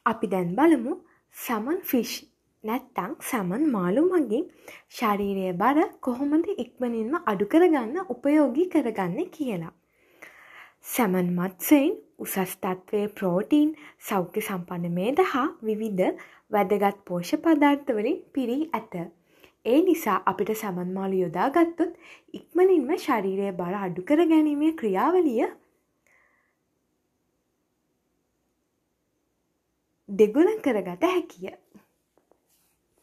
අපි දැන් බලමු සැමන් ෆිෂ් නැත්තම් සැමන් මාළු මගින් ශරීරයේ බර කොහොමද ඉක්මනින්ම අඩු කරගන්න උපයෝගී කරගන්නේ කියලා. සැමන් මත්ස්‍යයින් උසස් තත්ත්වයේ ප්‍රෝටීන්, සෞඛ්‍ය සම්පන්න මේද හා විවිධ වැදගත් පෝෂ්‍ය පදාර්ථ වලින් පිරී ඇත. ඒ නිසා අපිට සැමන් මාළු යොදා ගත්තොත් ඉක්මනින්ම ශරීරයේ බර අඩු කර ගැනීමේ ක්‍රියාවලිය දෙගුණ කරගත හැකිය.